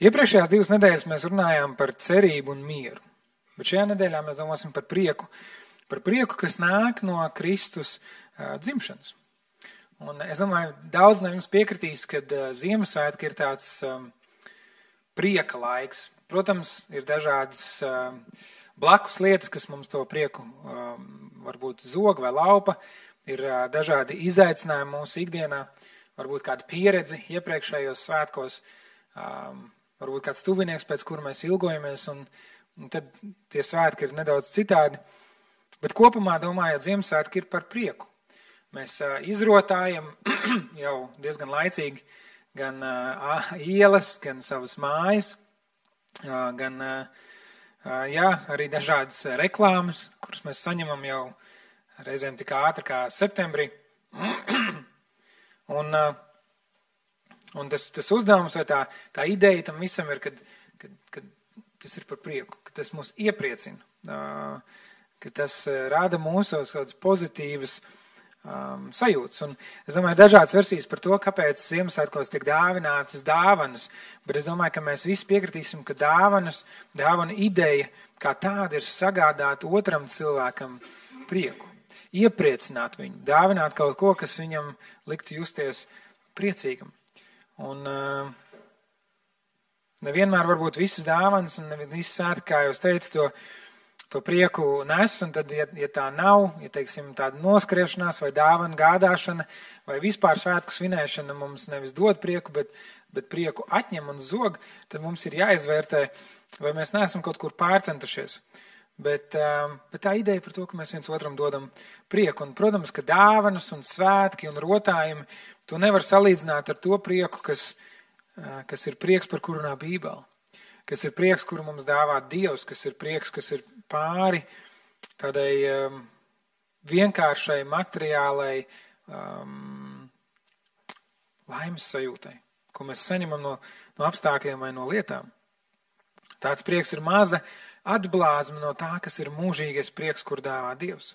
Iepriekšējās 2 nedēļas mēs runājām par cerību un mieru, bet šajā nedēļā mēs domāsim par prieku, kas nāk no Kristus dzimšanas. Un es domāju, daudz no jums piekritīs, kad Ziemassvētki ir tāds prieka laiks. Protams, ir dažādas blakus lietas, kas mums to prieku varbūt zog vai laupa, ir dažādi izaicinājumi mūsu ikdienā, varbūt kāda pieredze iepriekšējos svētkos, varbūt kāds tuvinieks, pēc kura mēs ilgojamies, un tad tie svētki ir nedaudz citādi. Bet kopumā, domājot, Ziemassvētki ir par prieku. Mēs izrotājam jau diezgan laicīgi gan ielas, gan savas mājas, gan arī dažādas reklāmas, kuras mēs saņemam jau reizēm tik ātri kā septembrī. Un tas uzdevums vai tā ideja tam visam ir, kad tas ir par prieku, ka tas mūs iepriecina, ka tas rāda mūsos kādas pozitīvas sajūtas. Un es domāju, dažādas versijas par to, kāpēc Ziemassvētkos tiek dāvinātas dāvanas, bet es domāju, ka mēs visi piekritīsim, ka dāvana ideja kā tāda ir sagādāt otram cilvēkam prieku, iepriecināt viņu, dāvināt kaut ko, kas viņam liktu justies priecīgam. Un nevienmēr varbūt visas dāvanas un visas svētki, kā jau es teicu, to prieku nes, un tad, ja tā nav, ja teiksim tāda noskriešanās vai dāvana gādāšana vai vispār svētku svinēšana mums nevis dod prieku, bet prieku atņem un zog, tad mums ir jāizvērtē, vai mēs neesam kaut kur pārcentušies. Bet tā ideja par to, ka mēs viens otram dodam prieku, un, protams, ka dāvanas un svētki un rotājumi, to nevar salīdzināt ar to prieku, kas ir prieks, par kuru runā Bībele, kas ir prieks, kuru mums dāvā Dievs, kas ir prieks, kas ir pāri tādai vienkāršai, materiālai laimes sajūtai, ko mēs saņemam no apstākļiem vai no lietām. Tāds prieks ir maza atblāzma no tā, kas ir mūžīgais prieks, kur dāvā Dievs.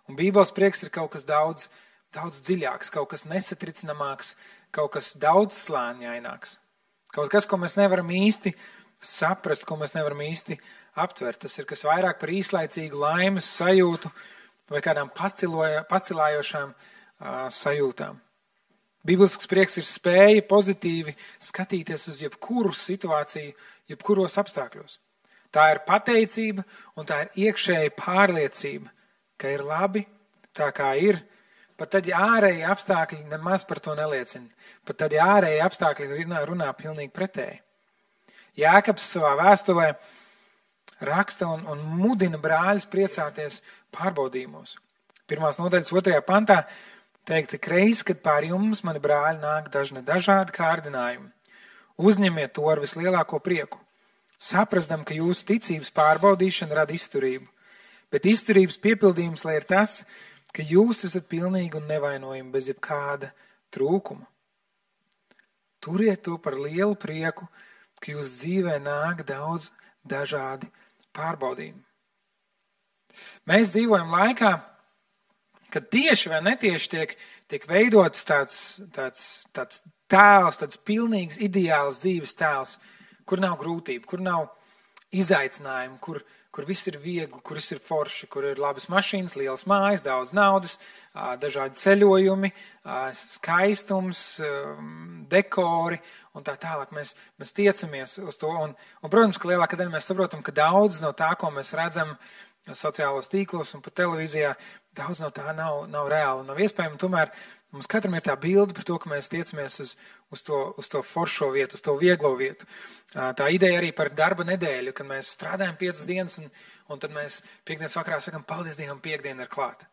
Un Bībeles prieks ir kaut kas daudz dziļāks, kaut kas nesatricināmāks, kaut kas daudz slāņaināks. Kaut kas, ko mēs nevaram īsti saprast, ko mēs nevaram īsti aptvert. Tas ir kas vairāk par īslaicīgu laimes sajūtu vai kādām pacilājošām sajūtām. Bīblisks prieks ir spēja pozitīvi skatīties uz jebkuru situāciju, jebkuros apstākļos. Tā ir pateicība un tā ir iekšēja pārliecība, ka ir labi tā, kā ir. Pat tad, ja ārēji apstākļi nemaz par to neliecina. Pat tad, ja ārēji apstākļi runā pilnīgi pretēji. Jēkabs savā vēstulē raksta un mudina brāļus priecāties pārbaudījumos. 1. nodaļas 2. pantā teikts, cik reiz, kad pār jums, mani brāļi, nāk dažādi kārdinājumi. Uzņemiet to ar vislielāko prieku. Saprasdam, ka jūsu ticības pārbaudīšana rada izturību. Bet izturības piepildījums, lai ir tas, ka jūs esat pilnīgi un nevainojami bez jebkāda trūkuma. Turiet to par lielu prieku, ka jūs dzīvē nāk daudz dažādi pārbaudījumi. Mēs dzīvojam laikā, kad tieši vai netieši tiek veidots tāds tēls, tāds pilnīgs ideāls dzīves tēls, kur nav grūtību, kur nav izaicinājumu, kur viss ir viegli, kur viss ir forši, kur ir labas mašīnas, lielas mājas, daudz naudas, dažādi ceļojumi, skaistums, dekori un tā tālāk. Mēs tiecamies uz to. Un, protams, ka lielākā daļa mēs saprotam, ka daudz no tā, ko mēs redzam sociālos tīklos un pat televīzijā, daudz no tā nav reāli un nav iespējami. Tomēr mums katram ir tā bilde par to, ka mēs tiecamies uz to foršo vietu, uz to vieglo vietu. Tā ideja arī par darba nedēļu, kad mēs strādājam 5 dienas un tad mēs piekdienas vakarā sakam, paldies Dievam, piekdiena ir klāta.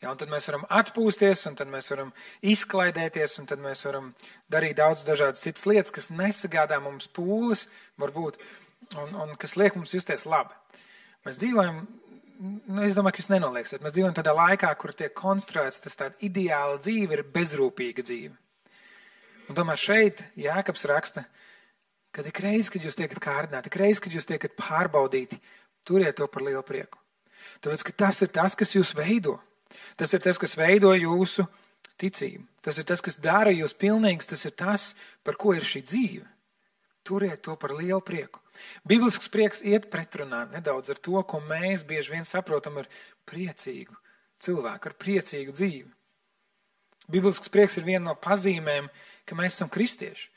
Ja, un tad mēs varam atpūsties, un tad mēs varam izklaidēties, un tad mēs varam darīt daudz dažādas citas lietas, kas nesagādā mums pūles, varbūt, un kas liek mums justies labi. Mēs dzīvojam, es domāju, ka jūs nenolieksiet, mēs dzīvojam tādā laikā, kur tiek konstruēts tas tāda ideāla dzīve, ir bezrūpīga dzīve. Un tomēr šeit Jēkabs raksta, ka ik reiz, kad jūs tiekat kārdināti, ik reiz, kad jūs tiekat pārbaudīti, turiet to par lielu prieku. Tāpēc, ka tas ir tas, kas jūs veido. Tas ir tas, kas veido jūsu ticību. Tas ir tas, kas dara jūs pilnīgs, tas ir tas, par ko ir šī dzīve. Turiet to par lielu prieku. Biblisks prieks iet pretrunā nedaudz ar to, ko mēs bieži vien saprotam ar priecīgu cilvēku, ar priecīgu dzīvi. Biblisks prieks ir viena no pazīmēm, ka mēs esam kristieši.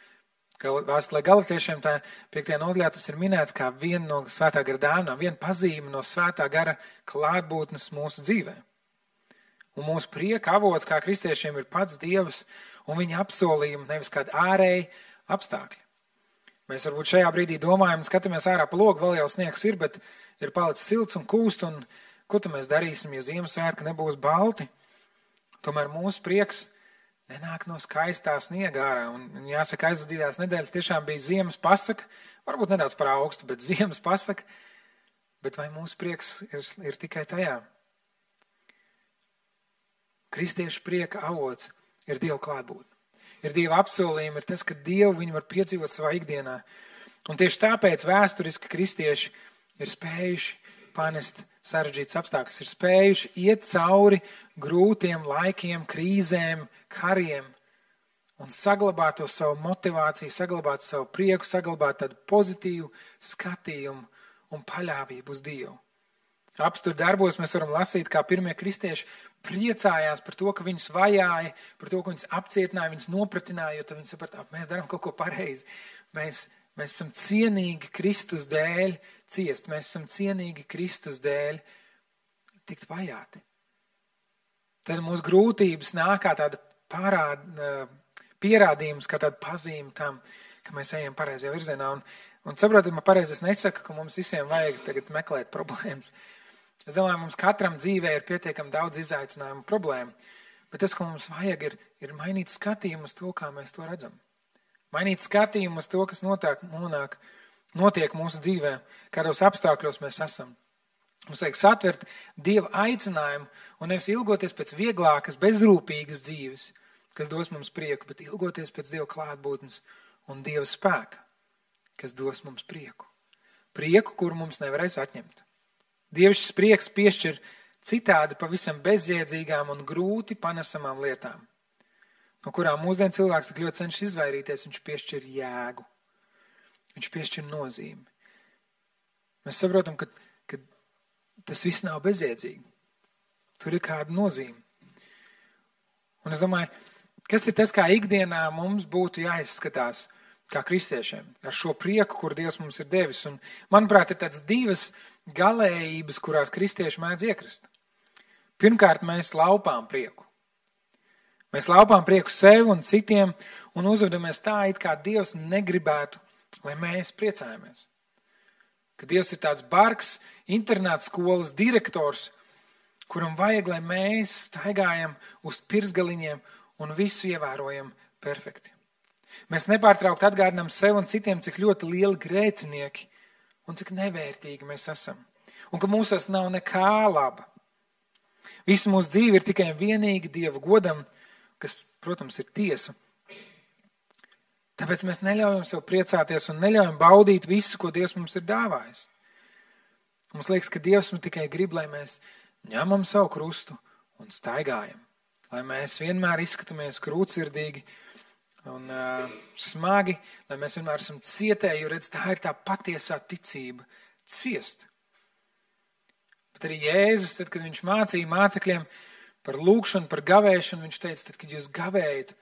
Vēstulē Galatiešiem tā 5. nodaļā tas ir minēts kā viena no svētā gara dāvanām, viena pazīme no svētā gara klātbūtnes mūsu dzīvē. Un mūsu prieka avots kā kristiešiem ir pats Dievs un viņa apsolījumi, nevis kādi ārēji apstākļi. Mēs varbūt šajā brīdī domājam, skatāmies ārā pa logu, vēl jau sniegs ir, bet ir palicis silts un kūst, un ko tad mēs darīsim, ja Ziemassvētki nebūs balti? Tomēr mūsu prieks nenāk no skaistā sniega ārā, un jāsaka, aizvadītās nedēļas tiešām bija ziemas pasaka, varbūt nedaudz par augstu, bet ziemas pasaka, bet vai mūsu prieks ir tikai tajā? Kristiešu prieka avots ir Dieva klātbūtne. Ir Dieva apsolījumi, ir tas, ka Dievu viņi var piedzīvot savā ikdienā. Un tieši tāpēc vēsturiski kristieši ir spējuši panest sarežģītas apstākļus, ir spējuši iet cauri grūtiem laikiem, krīzēm, kariem un saglabāt to savu motivāciju, saglabāt savu prieku, saglabāt tādu pozitīvu skatījumu un paļāvību uz Dievu. Apstur darbos mēs varam lasīt, kā pirmie kristieši priecājās par to, ka viņus vajāja, par to, ka viņus apcietināja, viņus nopratināja, jo tad viņi saprata, mēs darām kaut ko pareizi. Mēs esam cienīgi Kristus dēļ ciest, mēs esam cienīgi Kristus dēļ tikt vajāti. Tad mūsu grūtības nāk kā tāda pierādījums, kā tāda pazīme tam, ka mēs ejam pareizajā virzienā. Un saprotat, man pareizi es nesaku, ka mums visiem vajag tagad meklēt problēmas. Es domāju, mums katram dzīvē ir pietiekami daudz izaicinājumu problēmu, bet tas, ko mums vajag, ir mainīt skatījumu uz to, kā mēs to redzam. Mainīt skatījumu uz to, kas notiek mūsu dzīvē, kādos apstākļos mēs esam. Mums vajag satvert Dieva aicinājumu un nevis ilgoties pēc vieglākas, bezrūpīgas dzīves, kas dos mums prieku, bet ilgoties pēc Dieva klātbūtnes un Dieva spēka, kas dos mums prieku. Prieku, kuru mums nevarēs atņemt. Dievišķis prieks piešķir citādi pavisam bezjēdzīgām un grūti panesamām lietām, no kurām mūsdien cilvēks tik ļoti cenšas izvairīties. Viņš piešķir jēgu, viņš piešķir nozīmi. Mēs saprotam, ka tas viss nav bezjēdzīgi. Tur ir kāda nozīme. Un es domāju, kas ir tas, kā ikdienā mums būtu jāizskatās kā kristiešiem, ar šo prieku, kur Dievs mums ir devis. Un, manuprāt, ir tāds divas galējības, kurās kristieši mēdz iekrist. Pirmkārt, mēs laupām prieku. Mēs laupām prieku sev un citiem un uzvedamies tā, it kā Dievs negribētu, lai mēs priecājamies. Ka Dievs ir tāds bargs, internāta skolas direktors, kuram vajag, lai mēs staigājam uz pirksgaliņiem un visu ievērojam perfekti. Mēs nepārtraukt atgādinām sev un citiem, cik ļoti lieli grēcinieki un cik nevērtīgi mēs esam. Un ka mūsos nav nekā laba. Visa mūsu dzīve ir tikai vienīgi Dieva godam, kas, protams, ir tiesa. Tāpēc mēs neļaujam sev priecāties un neļaujam baudīt visu, ko Dievs mums ir dāvājis. Mums liekas, ka Dievs mums tikai grib, lai mēs ņemam savu krustu un staigājam. Lai mēs vienmēr izskatāmies krūtsirdīgi un smagi, lai mēs vienmēr esam cietēji, jo redz, tā ir tā patiesā ticība ciest. Bet arī Jēzus, tad, kad viņš mācīja mācekļiem par lūgšanu, par gavēšanu, viņš teica, tad, kad jūs gavējat,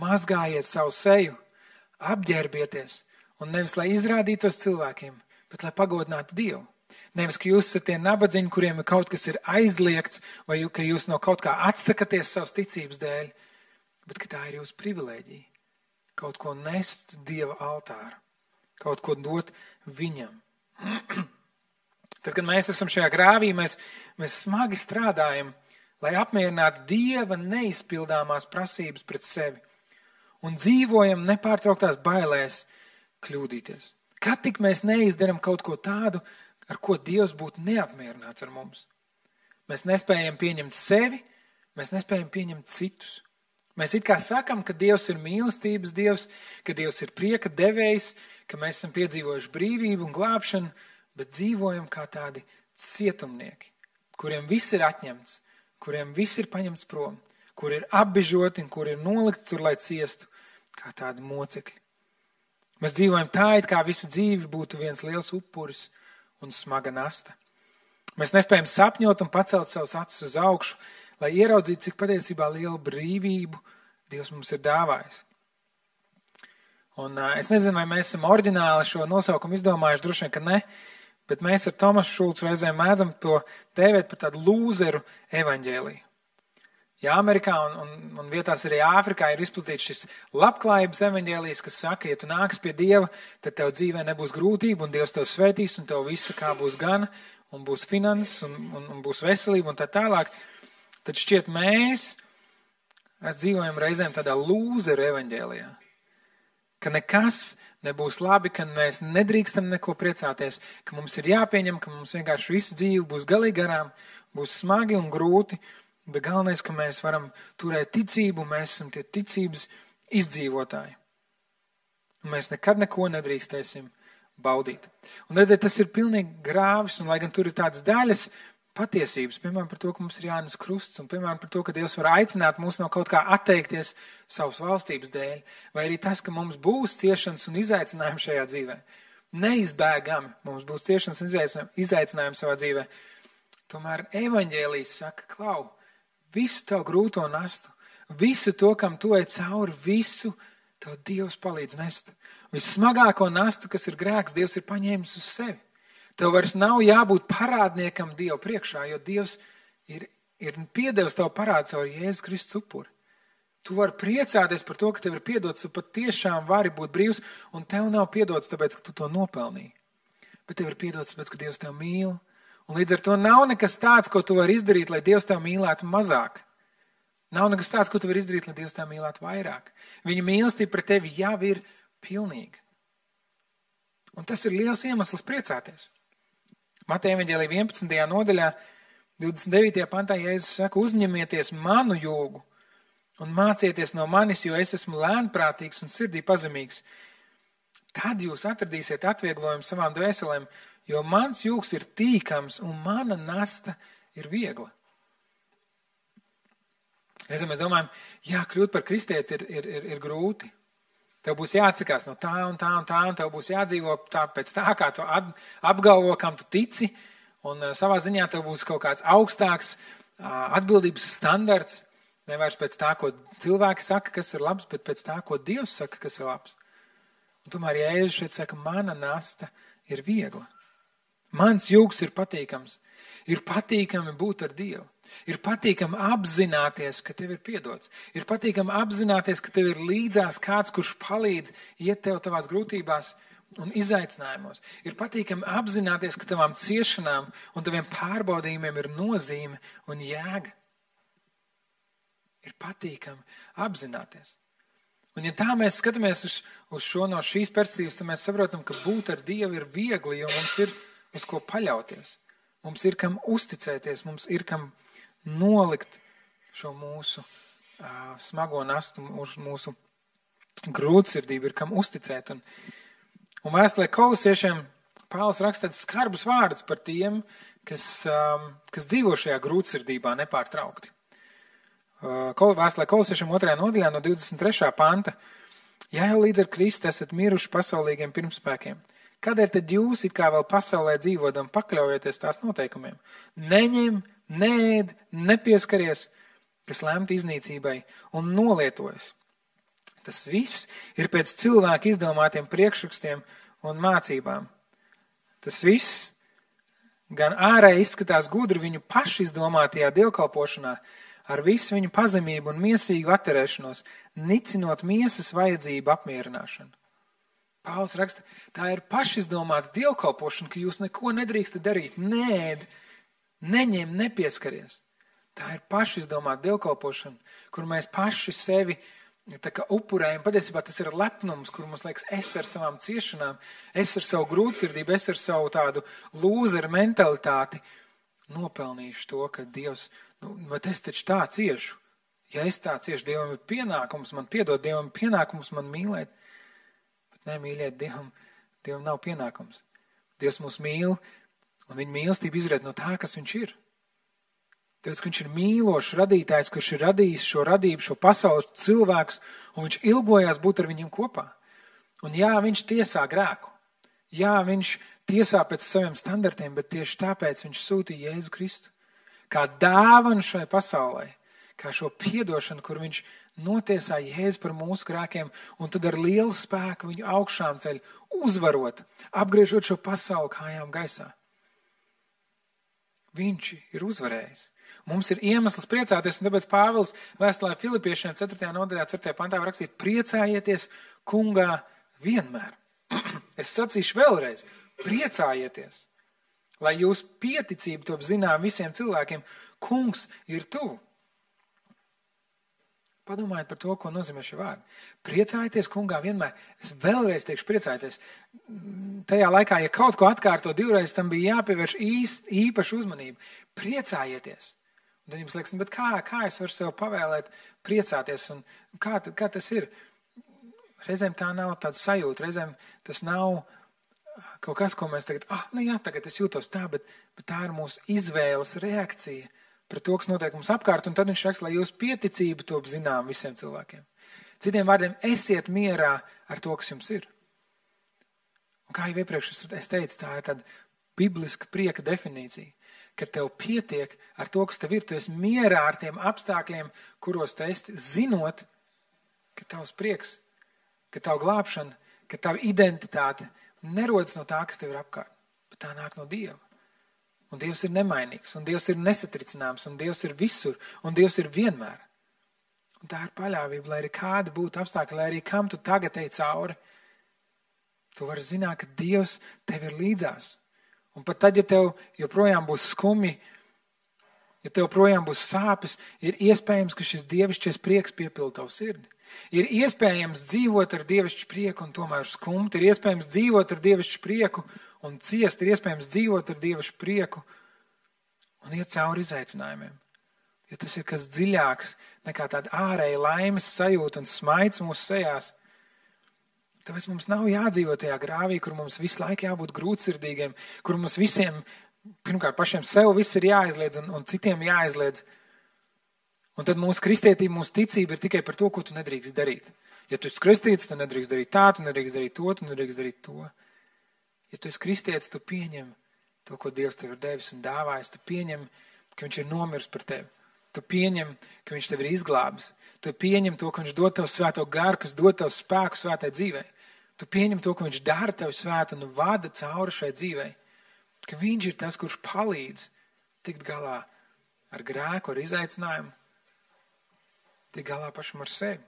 mazgājiet savu seju, apģērbieties, un nevis, lai izrādītos cilvēkiem, bet lai pagodinātu Dievu. Nevis, ka jūs esat tie nabadzīņi, kuriem ir kaut kas ir aizliegts, vai ka jūs no kaut kā atsakaties savas ticības dēļ, bet ka tā ir jūsu privilēģija. Kaut ko nest Dieva altāra, kaut ko dot viņam. Tad, kad mēs esam šajā grāvī, mēs smagi strādājam, lai apmierinātu Dieva neizpildāmās prasības pret sevi un dzīvojam nepārtrauktās bailēs kļūdīties. Kad tik mēs neizdaram kaut ko tādu, ar ko Dievs būtu neapmierināts ar mums. Mēs nespējam pieņemt sevi, mēs nespējam pieņemt citus. Mēs it kā sakam, ka Dievs ir mīlestības Dievs, ka Dievs ir prieka devējs, ka mēs esam piedzīvojuši brīvību un glābšanu, bet dzīvojam kā tādi cietumnieki, kuriem viss ir atņemts, kuriem viss ir paņemts prom, kur ir apbižoti un kur ir nolikti tur, lai ciestu, kā tādi mocekļi. Mēs dzīvojam tā, it kā visa dzīve būtu viens liels upuris un smaga nasta. Mēs nespējam sapņot un pacelt savus acis uz augšu, lai ieraudzītu, cik patiesībā lielu brīvību Dievs mums ir dāvājis. Un es nezinu, vai mēs esam oriģināli šo nosaukumu izdomājuši, droši vien, ka ne, bet mēs ar Tomasu Šulcu reizēm mēdzam to dēvēt par tādu lūzeru evaņģēliju. Ja Amerikā un vietās arī Āfrikā ir izplatīts šis labklājības evaņģēlijs, kas saka, ja tu nāks pie Dieva, tad tev dzīvē nebūs grūtība un Dievs tev svētīs un tev visa kā būs gana un būs finanses un būs veselība un tā tālāk. Tad šķiet mēs dzīvojam reizēm tādā lūzeru evaņģēlijā, ka nekas nebūs labi, ka mēs nedrīkstam neko priecāties, ka mums ir jāpieņem, ka mums vienkārši visa dzīve būs galīgi garām, būs smagi un grūti, bet galvenais, ka mēs varam turēt ticību, mēs esam tie ticības izdzīvotāji. Un mēs nekad neko nedrīkstēsim baudīt. Un redziet, tas ir pilnīgi grāvis, un lai gan tur ir tādas daļas patiesības, piemēram par to, ka mums ir jānes krusts, un piemēram par to, ka Dievs var aicināt mūs no kaut kā atteikties savas valstības dēļ, vai arī tas, ka mums būs ciešanas un izaicinājumi šajā dzīvē. Neizbēgami mums būs ciešanas un izaicinājumi savā dzīvē. Tomēr evaņģēlijs saka, klau, visu tavu grūto nastu, visu to, kam tu ej cauri, visu tev Dievs palīdz nest. Vissmagāko nastu, kas ir grēks, Dievs ir paņēmis uz sevi. Tev vairs nav jābūt parādniekam Dievu priekšā, jo Dievs ir piedevis tavu parādu caur Jēzus Kristus upuri. Tu vari priecāties par to, ka tev ir piedots, tu pat tiešām vari būt brīvs, un tev nav piedots tāpēc, ka tu to nopelnīji. Bet tev ir piedots tāpēc, ka Dievs tev mīl. Un līdz ar to nav nekas tāds, ko tu vari izdarīt, lai Dievs tev mīlētu mazāk. Nav nekas tāds, ko tu vari izdarīt, lai Dievs tev mīlētu vairāk. Viņa mīlestība pret tevi jau ir pilnīga. Un tas ir liels iemesls priecāties. Mateja evaņģēlija 11. nodaļā, 29. pantā Jēzus saka, uzņemieties manu jūgu un mācieties no manis, jo es esmu lēnprātīgs un sirdī pazemīgs. Tad jūs atradīsiet atvieglojumu savām dvēselēm, jo mans jūgs ir tīkams un mana nasta ir viegla. Reizēm mēs domājam, jā, kļūt par kristieti ir grūti. Tev būs jāatsakās no tā un tā un tā, un tev būs jādzīvo tā pēc tā, kā tu apgalvo, kam tu tici, un savā ziņā tev būs kaut kāds augstāks atbildības standarts, nevairs pēc tā, ko cilvēki saka, kas ir labs, bet pēc tā, ko Dievs saka, kas ir labs. Un tomēr Jēzus šeit saka, mana nasta ir viegla. Mans jūgs ir patīkams. Ir patīkami būt ar Dievu. Ir patīkami apzināties, ka tev ir piedots. Ir patīkami apzināties, ka tev ir līdzās kāds, kurš palīdz iet tev tavās grūtībās un izaicinājumos. Ir patīkami apzināties, ka tavām ciešanām un taviem pārbaudījumiem ir nozīme un jēga. Ir patīkami apzināties. Un ja tā mēs skatāmies uz šo no šīs perspektīvas, tad mēs saprotam, ka būt ar Dievu ir viegli, jo mums ir uz ko paļauties. Mums ir kam uzticēties, mums ir kam nolikt šo mūsu smago nastu, mūsu grūtsirdību, ir kam uzticēt. Un vēstulē Kolosiešiem Pāvils raksta tādus skarbus vārdus par tiem, kas dzīvo šajā grūtsirdībā nepārtraukti. Vēstulē Kolosiešiem 2. nodaļā no 23. panta. Ja jau līdz ar Kristu esat miruši pasaulīgiem pirmspēkiem, kādēļ tad jūs it kā vēl pasaulē dzīvodam pakļaujieties tās noteikumiem? Neņem, neēd, nepieskaries, kas lemti iznīcībai un nolietojas. Tas viss ir pēc cilvēku izdomātiem priekšrakstiem un mācībām. Tas viss gan ārēji izskatās gudri viņu paši izdomātajā dievkalpošanā, ar visu viņu pazemību un miesīgu atterēšanos, nicinot miesas vajadzību apmierināšanu. Pāvils raksta, tā ir pašizdomāta dievkalpošana, ka jūs neko nedrīkstat darīt, neēd, neņem, nepieskaries. Tā ir pašizdomāta dievkalpošana, kur mēs paši sevi tā kā upurējam. Patiesībā tas ir lepnums, kur mums liekas, es ar savām ciešanām, es ar savu grūtsirdību, es ar savu tādu lūzeru mentalitāti nopelnīšu to, ka Dievs, bet es taču tā ciešu. Ja es tā ciešu, Dievam ir pienākums man piedot, Dievam ir pienākums man mīlēt. Bet ne, mīļiet, Dievam nav pienākums. Dievs mūs mīl, un viņa mīlestība izriet no tā, kas viņš ir. Tāpēc, ka viņš ir mīlošs radītājs, kurš ir radījis šo radību, šo pasauli, cilvēkus, un viņš ilgojās būt ar viņiem kopā. Un jā, viņš tiesā grēku. Jā, viņš tiesā pēc saviem standartiem, bet tieši tāpēc viņš sūtīja Jēzu Kristu. Kā dāvanu šai pasaulē, kā šo piedošanu, kur viņš notiesā Jēzu par mūsu grēkiem, un tad ar lielu spēku viņu augšām ceļ, uzvarot, apgriežot šo pasauli kājām gaisā. Viņš ir uzvarējis. Mums ir iemesls priecāties, un tāpēc Pāvils vēstulē Filipiešiem 4. nodaļā 4. pantā var rakstīt: priecājieties kungā vienmēr. Es sacīšu vēlreiz, priecājieties, lai jūs pieticība top zinām visiem cilvēkiem, kungs ir tuvu. Padomājiet par to, ko nozīmē šie vārdi. Priecājieties kungā vienmēr. Es vēlreiz teikšu priecājieties. Tajā laikā, ja kaut ko atkārto divreiz, tam bija jāpievērš īpaša uzmanība. Priecājieties. Un tad jums liekas, bet kā es varu sev pavēlēt priecāties? Un kā tas ir? Reizēm tā nav tāda sajūta, reizēm tas nav kaut kas, ko mēs tagad, tagad es jūtos tā, bet tā ir mūsu izvēles reakcija pret to, kas notiek mums apkārt, un tad viņš raksta, lai jūs pieticību top zinām visiem cilvēkiem. Citiem vārdiem, esiet mierā ar to, kas jums ir. Un kā jau iepriekš es teicu, tā ir tāda bibliska prieka definīcija, ka tev pietiek ar to, kas tev ir, tu esi mierā ar tiem apstākļiem, kuros tu esi, zinot, ka tavs prieks, ka tavu glābšana, ka tavu identitāte nerodas no tā, kas tev ir apkārt, bet tā nāk no Dieva. Un Dievs ir nemainīgs, un Dievs ir nesatricināms, un Dievs ir visur, un Dievs ir vienmēr. Un tā ir paļāvība, lai arī kādi būtu apstākļi, lai arī kam tu tagad ej cauri, tu vari zināt, ka Dievs tev ir līdzās. Un pat tad, ja tev joprojām būs skumji, ja tev projām būs sāpes, ir iespējams, ka šis dievišķies prieks piepilda tavu sirdi. Ir iespējams dzīvot ar dievišķu prieku un tomēr skumt. Ir iespējams dzīvot ar dievišķu prieku un ciest. Ir iespējams dzīvot ar dievišķu prieku un iet cauri izaicinājumiem. Jo tas ir kas dziļāks nekā tāda ārēja laimes sajūta un smaids mūsu sejās. Tāpēc mums nav jādzīvot tajā grāvī, kur mums visu laiku jābūt grūtsirdīgiem, kur mums visiem, pirmkārt pašiem sev viss ir jāaizliedz un citiem jāaizliedz. Un tad mūsu kristietība, mūsu ticība ir tikai par to, ko tu nedrīkst darīt. Ja tu esi kristīts, tu nedrīkst darīt tā, tu nedrīkst darīt to, tu nedrīkst darīt to. Ja tu esi kristietis, tu pieņem to, ko Dievs tev ir devis un dāvājis. Tu pieņem, ka viņš ir nomirs par tevi. Tu pieņem, ka viņš tev ir izglābis. Tu pieņem to, ka viņš dod tev svēto garu, kas dod tev spēku svētai dzīvei. Tu pieņem to, ka viņš dara tev svētu un vada cauri šai dzīvei. Ka viņš ir tas, kurš palīdz tikt galā ar grēku, ar izaicinājumu. Tik galā pašam ar sevi.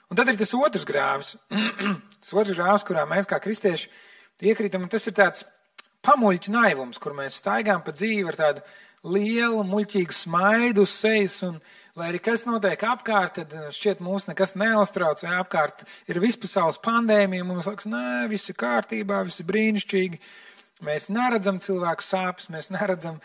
Un tad ir tas otrs grāvs. Tas otrs grāvs, kurā mēs kā kristieši iekrītam, un tas ir tāds pamuļķu naivums, kur mēs staigām pa dzīvi ar tādu lielu, muļķīgu smaidu uz sejas, un lai arī kas notiek apkārt, tad šķiet mūs nekas neuztrauc, vai apkārt ir vispasaules pandēmija, mums liekas, nē, viss ir kārtībā, viss ir brīnišķīgi. Mēs neredzam cilvēku sāpes, mēs neredzam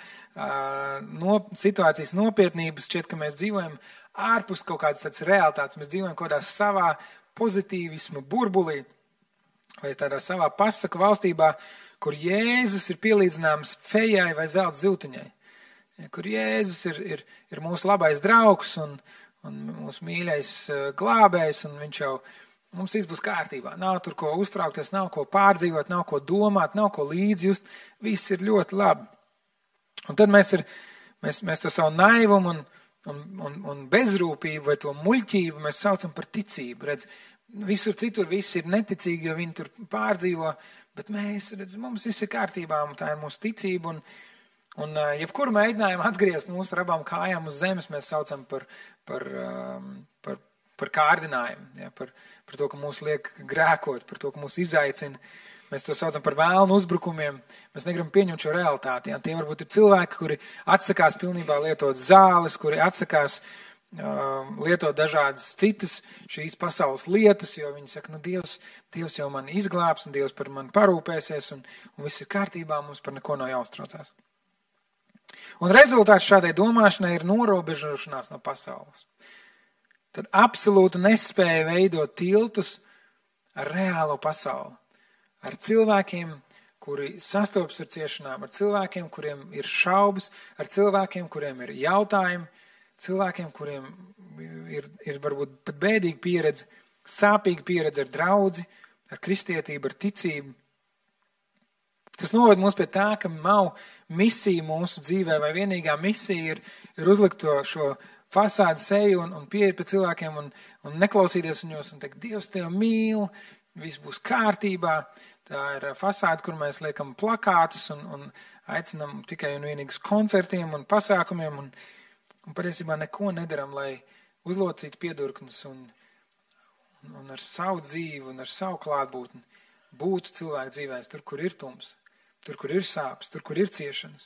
situācijas nopietnības, šķiet, ka mēs dzīvojam ārpus kaut kādas tādas realitātes, mēs dzīvojam kaut kādā savā pozitīvismu burbulī vai tādā savā pasaku valstībā, kur Jēzus ir pielīdzināms fejai vai zelta ziltiņai, kur Jēzus ir mūsu labais draugs un mūsu mīļais glābējs, un viņš jau mums viss būs kārtībā. Nav tur ko uztraukties, nav ko pārdzīvot, nav ko domāt, nav ko līdzjust. Viss ir ļoti labi. Un tad mēs to savu naivumu un bezrūpību vai to muļķību mēs saucam par ticību. Redz, visur citur viss ir neticīgi, jo viņi tur pārdzīvo, bet mums viss ir kārtībā, un tā ir mūsu ticība. Un jebkuru mēģinājumu atgriezt mūsu ar abām kājām uz zemes mēs saucam par kārdinājumu, ja, par to, ka mūs liek grēkot, par to, ka mūs izaicina. Mēs to saucam par vēlnu uzbrukumiem. Mēs negribam pieņemt šo realitāti. Ja. Tie varbūt ir cilvēki, kuri atsakās pilnībā lietot zāles, kuri atsakās lietot dažādas citas šīs pasaules lietas, jo viņi saka, Dievs jau mani izglābs, un Dievs par mani parūpēsies, un viss ir kārtībā, mums par neko nav jāuztraucās. Un rezultāts šādai domāšanai ir norobežošanās no pasaules. Tad absolūti nespēja veidot tiltus ar reālo pasauli. Ar cilvēkiem, kuri sastopas ar ciešanām, ar cilvēkiem, kuriem ir šaubas, ar cilvēkiem, kuriem ir jautājumi, cilvēkiem, kuriem ir varbūt pat bēdīga pieredze, sāpīga pieredze ar draudzi, ar kristietību, ar ticību. Tas noved mūs pie tā, ka nav misija mūsu dzīvē, vai vienīgā misija ir uzlikt šo fasādi seju un pieiet pie cilvēkiem un neklausīties viņos un teikt, Dievs tev mīl, viss būs kārtībā. Tā ir fasāde, kur mēs liekam plakātus un aicinam tikai un vienīgi uz koncertiem un pasākumiem un patiesībā neko nedaram, lai uzlocītu piedurknes un ar savu dzīvi un ar savu klātbūtni būtu cilvēku dzīvēs tur, kur ir tums, tur, kur ir sāpes, tur, kur ir ciešanas.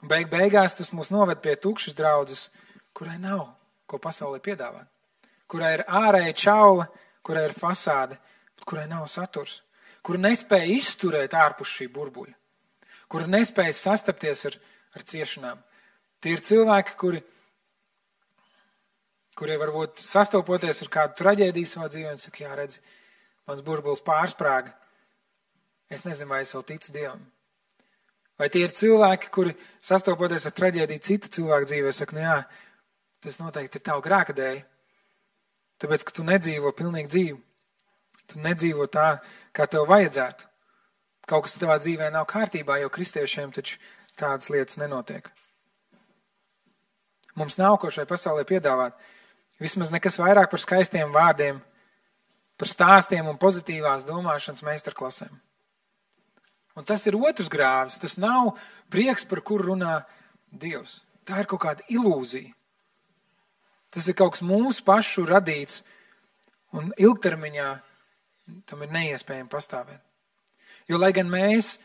Un beigās tas mūs noved pie tukšas draudzes, kurai nav ko pasaulē piedāvāt, kurai ir ārēja čaula, kurai ir fasāde, bet kurai nav saturs, kura nespēja izturēt ārpus šī burbuļa, kura nespēja sastapties ar ciešanām. Tie ir cilvēki, kuri varbūt sastopoties ar kādu traģēdiju savā dzīvē, un saka, jā, redzi, mans burbulis pārsprāga. Es nezinu, vai es vēl ticu Dievam. Vai tie ir cilvēki, kuri sastopoties ar traģēdiju citu cilvēku dzīvē, saka, nu jā, tas noteikti ir tavu grēka dēļ, tāpēc, ka tu nedzīvo pilnīgi dzīvi. Tu nedzīvo tā, kā tev vajadzētu. Kaut kas tavā dzīvē nav kārtībā, jo kristiešiem taču tādas lietas nenotiek. Mums nav ko šai pasaulē piedāvāt. Vismaz nekas vairāk par skaistiem vārdiem, par stāstiem un pozitīvās domāšanas meistarklasēm. Un tas ir otrs grāvis. Tas nav prieks, par kuru runā Dievs. Tā ir kaut kāda ilūzija. Tas ir kaut kas mūsu pašu radīts un ilgtermiņā tam ir neiespējami pastāvēt. Jo, lai gan mēs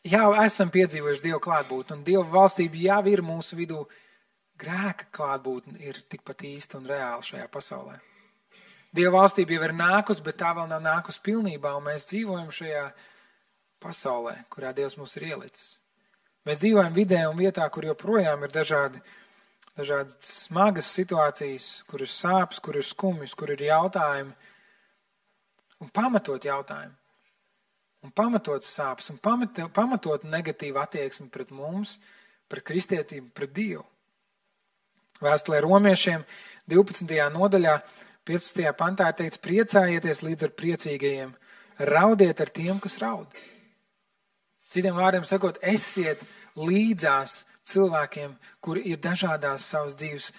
jau esam piedzīvojuši Dievu klātbūtni un Dieva valstība jau ir mūsu vidū, grēka klātbūtne ir tikpat īsta un reāla šajā pasaulē. Dieva valstība jau ir nākus, bet tā vēl nav nākus pilnībā, un mēs dzīvojam šajā pasaulē, kurā Dievs mūs ir ielicis. Mēs dzīvojam vidē un vietā, kur joprojām ir dažādas smagas situācijas, kur ir sāpes, kur ir skumjas, kur ir jautājumi, un pamatot jautājumi, un pamatot sāpes, un pamatot negatīvu attieksmi pret mums, pret kristietību, pret Dievu. Vēstulē Romiešiem 12. nodaļā 15. pantā ir teikts, priecājieties līdz ar priecīgajiem, raudiet ar tiem, kas raud. Citiem vārdiem sakot, esiet līdzās cilvēkiem, kuri ir dažādos savas dzīves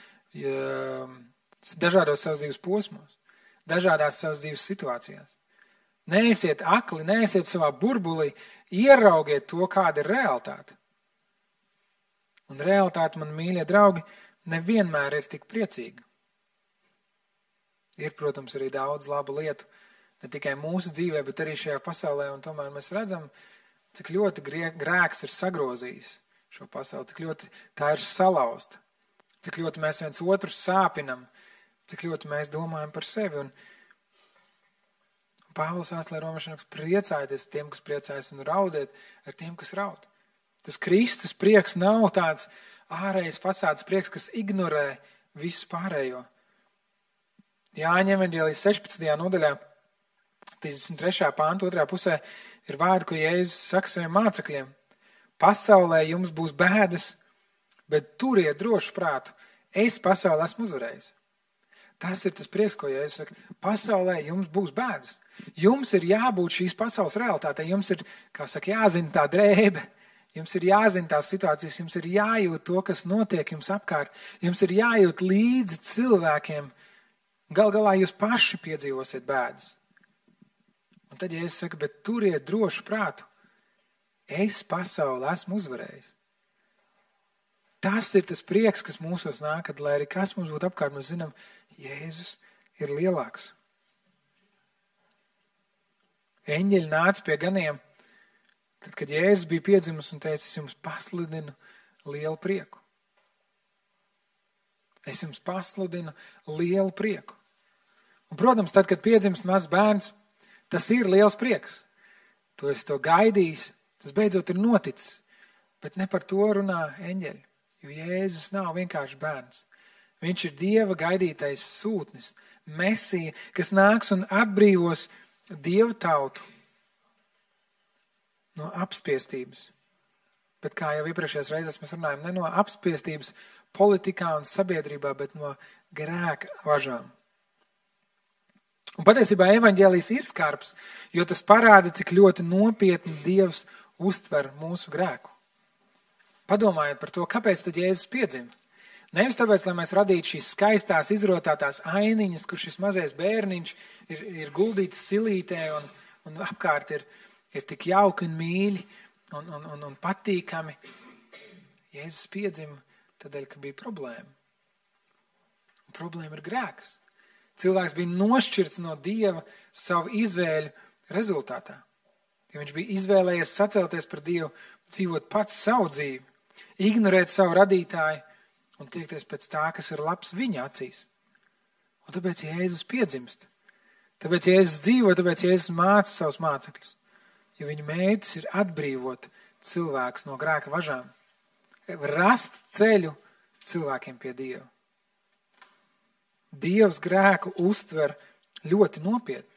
posmos, dažādās savas dzīves situācijās. Neesiet akli, neesiet savā burbulī, ieraugiet to, kāda ir realitāte. Un realitāte, man mīļie draugi, nevienmēr ir tik priecīga. Ir, protams, arī daudz labu lietu, ne tikai mūsu dzīvē, bet arī šajā pasaulē, un tomēr mēs redzam, cik ļoti grēks ir sagrozījis šo pasauli, cik ļoti tā ir salauzta, cik ļoti mēs viens otru sāpinam, cik ļoti mēs domājam par sevi. Un Pāvils vēstulē Romiešiem priecājieties tiem, kas priecājas, un raudiet ar tiem, kas raud. Tas Kristus prieks nav tāds ārējais fasādes prieks, kas ignorē visu pārējo. Jāņa evaņģēlijas 16. nodaļā, 33. pānta 2. pusē, ir vārdi, ko Jēzus saka saviem mācekļiem. Pasaulē jums būs bēdas, bet turiet drošu prātu. Es pasaulē esmu uzvarējis. Tas ir tas prieks, ko Jēzus saka. Pasaulē jums būs bēdas. Jums ir jābūt šīs pasaules realitātei. Jums ir, kā saka, jāzina tā drēbe. Jums ir jāzina tās situācijas, jums ir jājūt to, kas notiek jums apkārt. Jums ir jājūt līdzi cilvēkiem. Gal galā jūs paši piedzīvosiet bēdas. Un tad, ja es saku, bet turiet drošu prātu, es pasauli esmu uzvarējis. Tas ir tas prieks, kas mūsos nāk, kad, lai arī kas mums būtu apkārt, mēs zinām, Jēzus ir lielāks. Eņģeļi nāca pie ganiem, tad, kad Jēzus bija piedzimis un teica, es jums pasludinu lielu prieku. Es jums pasludinu lielu prieku. Un, protams, tad, kad piedzimst mazs bērns, tas ir liels prieks. Tu esi to gaidījis, tas beidzot ir noticis. Bet ne par to runā eņģeļi, jo Jēzus nav vienkārši bērns. Viņš ir Dieva gaidītais sūtnis, Mesija, kas nāks un atbrīvos Dieva tautu no apspiestības. Bet kā jau iepriekšējās reizes mēs runājam, ne no apspiestības politikā un sabiedrībā, bet no grēka važām. Un patiesībā evaņģēlijs ir skarbs, jo tas parāda, cik ļoti nopietni Dievs uztver mūsu grēku. Padomājiet par to, kāpēc tad Jēzus piedzima. Nevis tāpēc, lai mēs radītu šīs skaistās, izrotātās ainiņas, kur šis mazais bērniņš ir guldīts silītē un apkārt ir tik jauki un mīļi un patīkami. Jēzus piedzima tādēļ, ka bija problēma. Un problēma ir grēks. Cilvēks bija nošķirts no Dieva savu izvēļu rezultātā. Ja viņš bija izvēlējies sacelties par Dievu, dzīvot pats savu dzīvi, ignorēt savu radītāju un tiekties pēc tā, kas ir labs viņa acīs. Un tāpēc Jēzus piedzimst. Tāpēc Jēzus dzīvo, tāpēc Jēzus māca savus mācekļus. Jo viņa mērķis ir atbrīvot cilvēkus no grēka važām. Rast ceļu cilvēkiem pie Dieva. Dievs grēku uztver ļoti nopietni.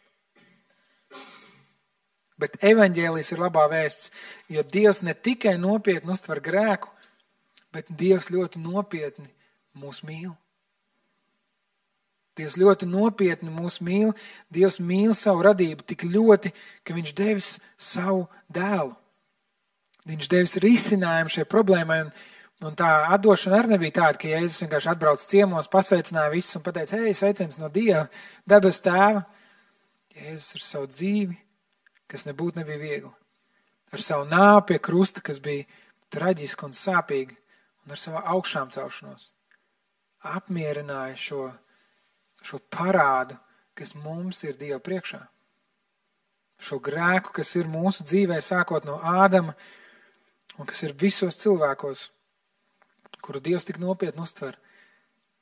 Bet evaņģēlijs ir labā vēsts, jo Dievs ne tikai nopietni uztver grēku, bet Dievs ļoti nopietni mūs mīl. Dievs ļoti nopietni mūs mīl. Dievs mīl savu radību tik ļoti, ka viņš devis savu dēlu. Viņš devis risinājumu šai problēmai, un tā atdošana arī nebija tāda, ka Jēzus vienkārši atbrauc ciemos, pasveicināja visus un pateica, hei, sveiciens no Dieva, debes tēva. Jēzus ar savu dzīvi, kas nebūtu nebija viegli. Ar savu nāvi pie krusta, kas bija traģiski un sāpīgi, un ar savu augšām celšanos. Apmierināja šo parādu, kas mums ir Dieva priekšā. Šo grēku, kas ir mūsu dzīvē, sākot no Ādama, un kas ir visos cilvēkos, kuru Dievs tik nopietni uztver.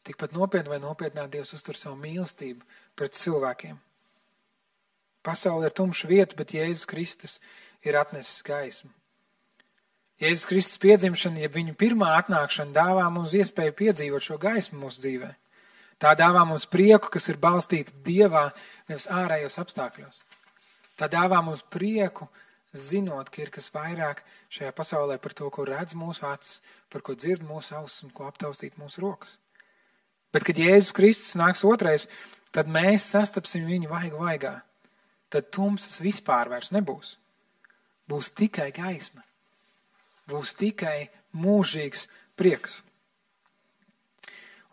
Tikpat nopietni vai nopietnāk Dievs uztver savu mīlestību pret cilvēkiem. Pasaule ir tumša vieta, bet Jēzus Kristus ir atnesis gaismu. Jēzus Kristus piedzimšana, ja viņa pirmā atnākšana dāvā mums iespēju piedzīvot šo gaismu mūsu dzīvē. Tā dāvā mums prieku, kas ir balstīta Dievā, nevis ārējos apstākļos. Tā dāvā mums prieku, zinot, ka ir kas vairāk šajā pasaulē par to, ko redz mūsu acis, par ko dzird mūsu ausis un ko aptaustīt mūsu rokas. Bet, kad Jēzus Kristus nāks otrais, tad mēs sastapsim viņu vaigu vaigā. Tad tumsas vispār vairs nebūs. Būs tikai gaisma. Būs tikai mūžīgs prieks.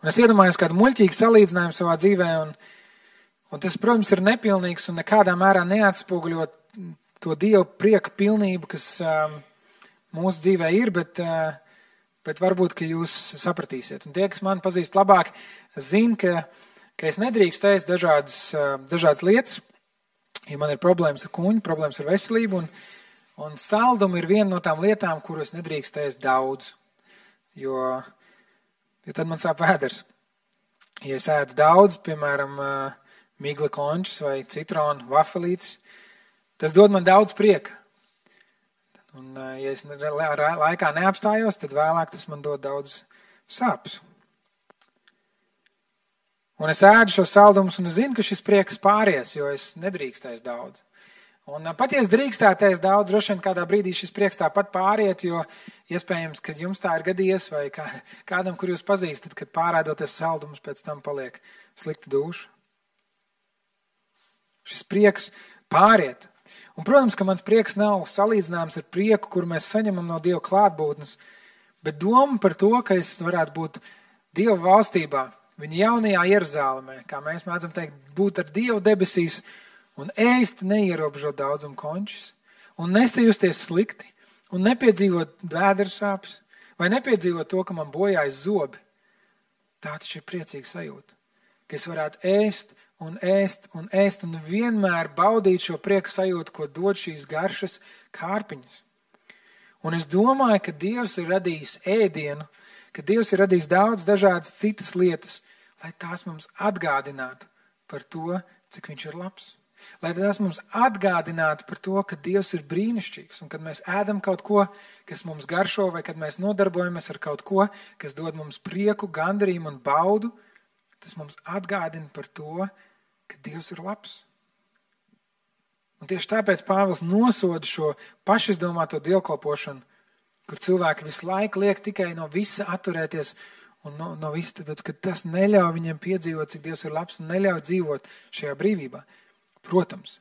Un es iedomājos kādu muļķīgu salīdzinājumu savā dzīvē, un tas, protams, ir nepilnīgs un nekādā mērā neatspoguļot to Dieva prieka pilnību, kas mūsu dzīvē ir, bet varbūt, ka jūs sapratīsiet. Un tie, kas mani pazīst labāk, zina, ka es nedrīkst ēst dažādas lietas, ja man ir problēmas ar kuņu, problēmas ar veselību, un saldumi ir viena no tām lietām, kuru es nedrīkst ēst daudz, jo tad man sāp vēders. Ja es ēdu daudz, piemēram, migla končus vai citronu vafelītes, tas dod man daudz prieka. Un, ja es laikā neapstājos, tad vēlāk tas man dod daudz sāpes. Un es ēdu šos saldumus un es zinu, ka šis prieks pāries, jo es nedrīkstēs daudz. Un pat ja es drīkstēties daudz, droši vien kādā brīdī šis prieks tāpat pāriet, jo iespējams, kad jums tā ir gadījies vai kādam, kur jūs pazīstat, kad pārēdoties saldumus, pēc tam paliek slikta duša. Šis prieks pāriet. Un, protams, ka mans prieks nav salīdzināms ar prieku, kur mēs saņemam no Dieva klātbūtnes, bet doma par to, ka es varētu būt Dieva valstībā, viņa jaunajā Jeruzālemē, kā mēs mēdzam teikt, būt ar Dievu debesīs un ēst neierobežot daudzumu končus, un nesajusties slikti, un nepiedzīvot vēdersāpes, vai nepiedzīvot to, ka man bojājas zobi. Tā taču ir priecīga sajūta, ka es varētu ēst un ēst un ēst un vienmēr baudīt šo prieku sajūtu, ko dod šīs garšas kārpiņas. Un es domāju, ka Dievs ir radījis ēdienu, ka Dievs ir radījis daudz dažādas citas lietas, lai tās mums atgādinātu par to, cik viņš ir labs. Lai tās mums atgādinātu par to, ka Dievs ir brīnišķīgs, un kad mēs ēdam kaut ko, kas mums garšo, vai kad mēs nodarbojamies ar kaut ko, kas dod mums prieku, gandarījumu un baudu, tas mums atgādina par to, ka Dievs ir labs. Un tieši tāpēc Pāvils nosoda šo pašizdomāto dievkalpošanu, kur cilvēki visu laiku liek tikai no visa atturēties un no viss, tāpēc, ka tas neļauj viņiem piedzīvot, cik Dievs ir labs un neļauj dzīvot šajā brīvībā. Protams,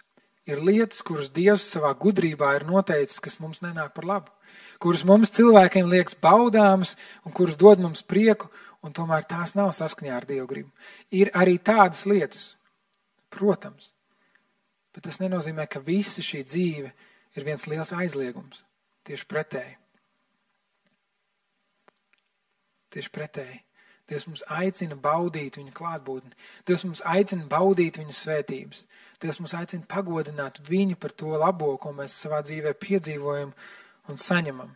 ir lietas, kuras Dievs savā gudrībā ir noteicis, kas mums nenāk par labu, kuras mums cilvēkiem liekas baudāmas un kuras dod mums prieku, un tomēr tās nav saskaņā ar Dievu gribu. Ir arī tādas lietas, protams, bet tas nenozīmē, ka visa šī dzīve ir viens liels aizliegums. Tieši pretēji. Tieši pretēji. Dievs mums aicina baudīt viņa klātbūtni. Dievs mums aicina baudīt viņa svētības. Dievs mums aicina pagodināt viņu par to labo, ko mēs savā dzīvē piedzīvojam un saņemam.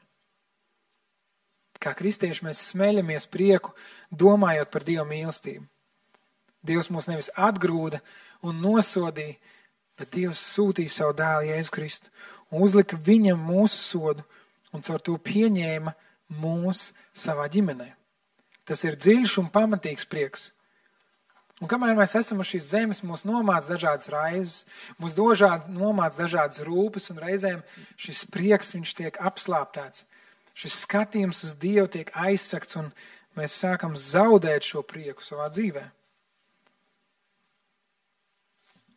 Kā kristieši mēs smeļamies prieku, domājot par Dieva mīlestību. Dievs mūs nevis atgrūda un nosodīja, bet Dievs sūtīja savu dēlu Jēzu Kristu un uzlika viņam mūsu sodu un caur to pieņēma mūs savā ģimenē. Tas ir dziļš un pamatīgs prieks. Un kamēr mēs esam uz šīs zemes, mūs nomāc dažādas raizes, mūs nomāc dažādas rūpes, un reizēm šis prieks, viņš tiek apslāptēts. Šis skatījums uz Dievu tiek aizsakts, un mēs sākam zaudēt šo prieku savā dzīvē.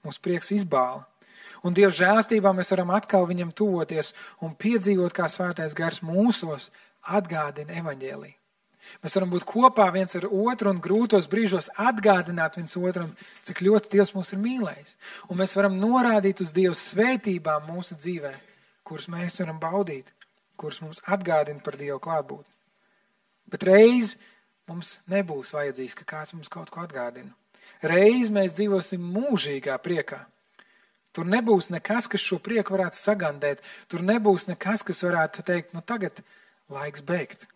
Mūsu prieks izbāla. Un Dieva žēlstībā mēs varam atkal viņam tuvoties un piedzīvot, kā svētais gars mūsos atgādina evaņģēliju. Mēs varam būt kopā viens ar otru un grūtos brīžos atgādināt viens otram, cik ļoti Dievs mūs ir mīlējis. Un mēs varam norādīt uz Dieva svētībām mūsu dzīvē, kuras mēs varam baudīt, kuras mums atgādina par Dieva klātbūtni. Bet reiz mums nebūs vajadzīgs, ka kāds mums kaut ko atgādina. Reiz mēs dzīvosim mūžīgā priekā. Tur nebūs nekas, kas šo prieku varētu sagandēt. Tur nebūs nekas, kas varētu teikt, nu tagad laiks beigt.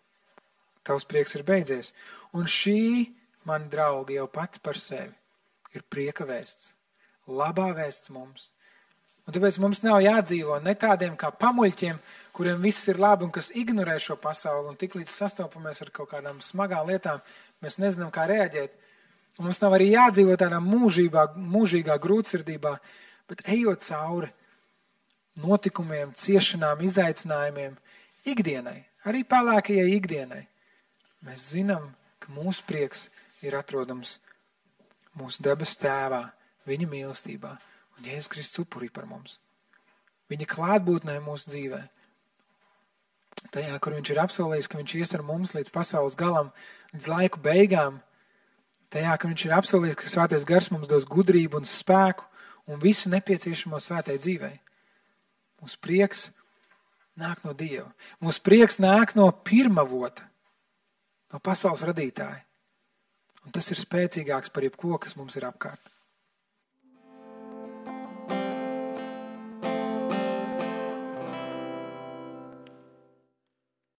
Tavs prieks ir beidzies. Un šī, mani draugi, jau pati par sevi ir prieka vēsts. Labā vēsts mums. Un tāpēc mums nav jādzīvo ne tādiem kā pamuļķiem, kuriem viss ir labi un kas ignorē šo pasauli. Un tik līdz sastopamies ar kaut kādām smagām lietām, mēs nezinām, kā reaģēt. Un mums nav arī jādzīvo tādā mūžīgā grūtsirdībā, bet ejot cauri notikumiem, ciešanām, izaicinājumiem, ikdienai, arī pelēkajai ikdienai, mēs zinām, ka mūsu prieks ir atrodams mūsu debes tēvā, viņa mīlestībā un Jēzus Kristus upurī par mums. Viņa klātbūtnē mūsu dzīvē. Tajā, kur viņš ir apsolījis, ka viņš ies ar mums līdz pasaules galam, līdz laiku beigām. Tajā, ka viņš ir apsolījis, ka svētais gars mums dos gudrību un spēku un visu nepieciešamo svētai dzīvei. Mūsu prieks nāk no Dieva. Mūsu prieks nāk no pirmavota, no pasaules radītāja. Un tas ir spēcīgāks par jebko, kas mums ir apkārt.